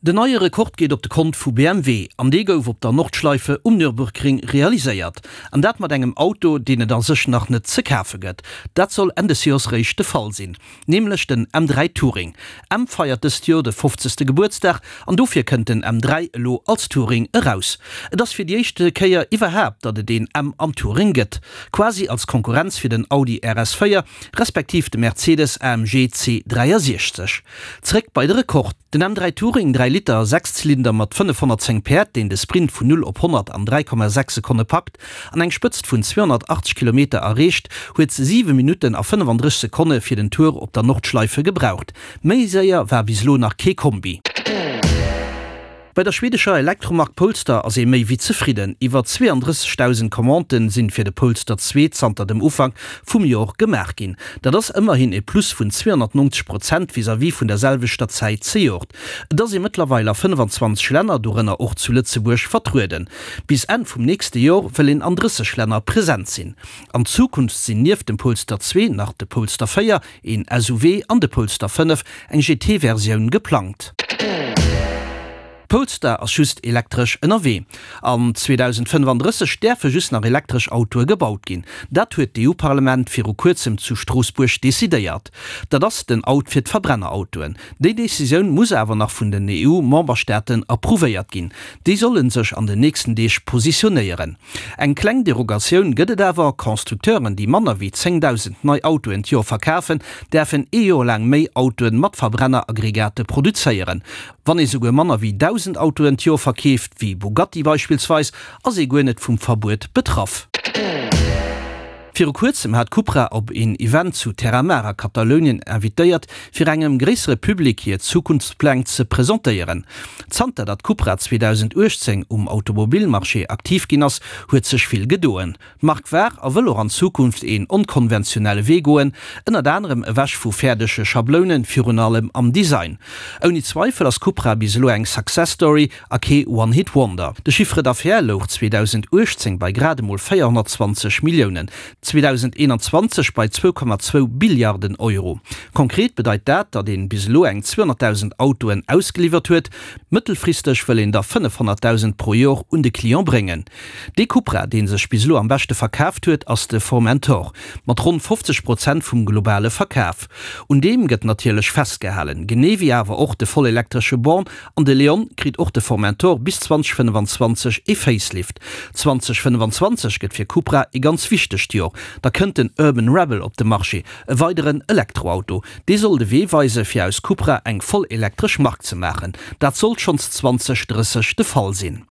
Den neie Rekord geet op de Kont vu BMW an dee gouf op der Nordschleife um Nürburgring realiséiert. An dat mat engem Auto, deen et a sech nach net ze kafe gëtt. Dat soll Enn des Joers réischt de Fall sinn. Nämlech den M3 Touring. M feiert dëst Joer de fofzegste Gebuertsdag an dofir kënnt den M3 elo als Touring eraus. Et ass fir déi éischte Kéier iwwerhaapt, datt et een M am Touring gëtt. Quasi als Konkurrenz fir den Audi RS4 respektiv de Mercedes AMG C63. Zréck bei de Rekord. Den M3 Touring, 3 Liter, Sechszylinder mat 510 Päerd, deen de Sprint vun 0 op 100 an 3,6 Sekonne packt an eng Spëtzt vun 280 Kilometer erreecht, huet 7 Minutten a 35 Sekonne fir den Tour op der Nordschleife gebraucht. Méi séier war bis elo nach kee Kombi. Bei der schwedescher Elektromark Polestar ass ee méi wéi zefridden. Iwwer 32.000 Commandë sinn fir de Polestar 2 zanter dem Ufank vum Jor gemaach ginn. Dat ass ëmmerhin e Plus vun 290 Prozent vis-à-vis vun der selwechter Zäit zejoert. Et ass ee mëttlerweil a 25 Länner, dorënner och zu Lëtzebuerg, vertrueden. Bis Enn vum nächste Jor wëll een an 30 Länner present sinn. An Zukunft sinn nieft dem Polestar 2 nach de Polestar 4, een SUV, an de Polestar 5, eng GT-Versioun, geplangt. Polestar ass just elektresch ënnerwee. An 2035 däerfe just nach elektresch Autoe gebaut ginn. Dat huet d'EU-Parlament viru kuerzem zu Stroossbuerg decidéiert. Dat ass den Out fir d'Verbrennerautoen. Déi Decisioun muss awer nach vun den EU-Memberstaaten approuvéiert ginn. Déi solle sech an den nächsten Deeg positionéieren. Eng kleng Derogatioun gëtt et awer, Constructeuren, déi manner wéi 10.000 nei Autoen d'Joer verkafen, däerfen ee Joer laang méi Autoen mat Verbrenneraggregate produzéieren. Wann ee souguer manner wéi 1.000 Autoen d'Joer verkeeft, wéi Bugatti beispillsweis, ass ee guer net vum Verbuet betraff. Viru kuerzem hat Cupra op een Event zu Terramar a Katalounien invitéiert, fir engem gréissere Public hir Zukunftspläng ze presentéieren. Zanter datt Cupra 2018 um Automobilmarché aktiv ginn ass, huet sech vill gedoen. D'Mark war a wëll och an Zukunft een onkonventionelle Wee goen, ënnert anerem ewech vu fäerdege Schablounen, virun allem am Design. Ouni Zweifel ass Cupra bis elo eng Success Story A kee One Hit Wonder. De Chiffre d'affaires louch 2018 bei grad emol 420 Milliounen, 2021 bei 2,2 Billiarden Euro. Konkret bedeit dat, datt een bis elo eng 200.000 Autoen ausgeliwwert huet. Mëttelfristeg wëll een der 500.000 pro Jor un de Client bréngen. Dee Cupra, dee sech bis elo am beschte verkaaft huet, ass de Formentor, mat ronn 50 Prozent vum globale Verkaf. Un deem gëtt natierlech festgehalen, genee wéi awer och de vollelektresche Born An de Leon kritt och de Formentor bis 2025 ee Facelift. 2025 gëtt fir Cupra ee ganz wichtegt Jor, da kënnt den Urban Rebel op de Marché, e weideren Elektroauto. Dee soll de Wee weise fir aus Cupra eng voll elektresch Mark ze maachen. Dat sollt schonns 2030 de Fall sinn.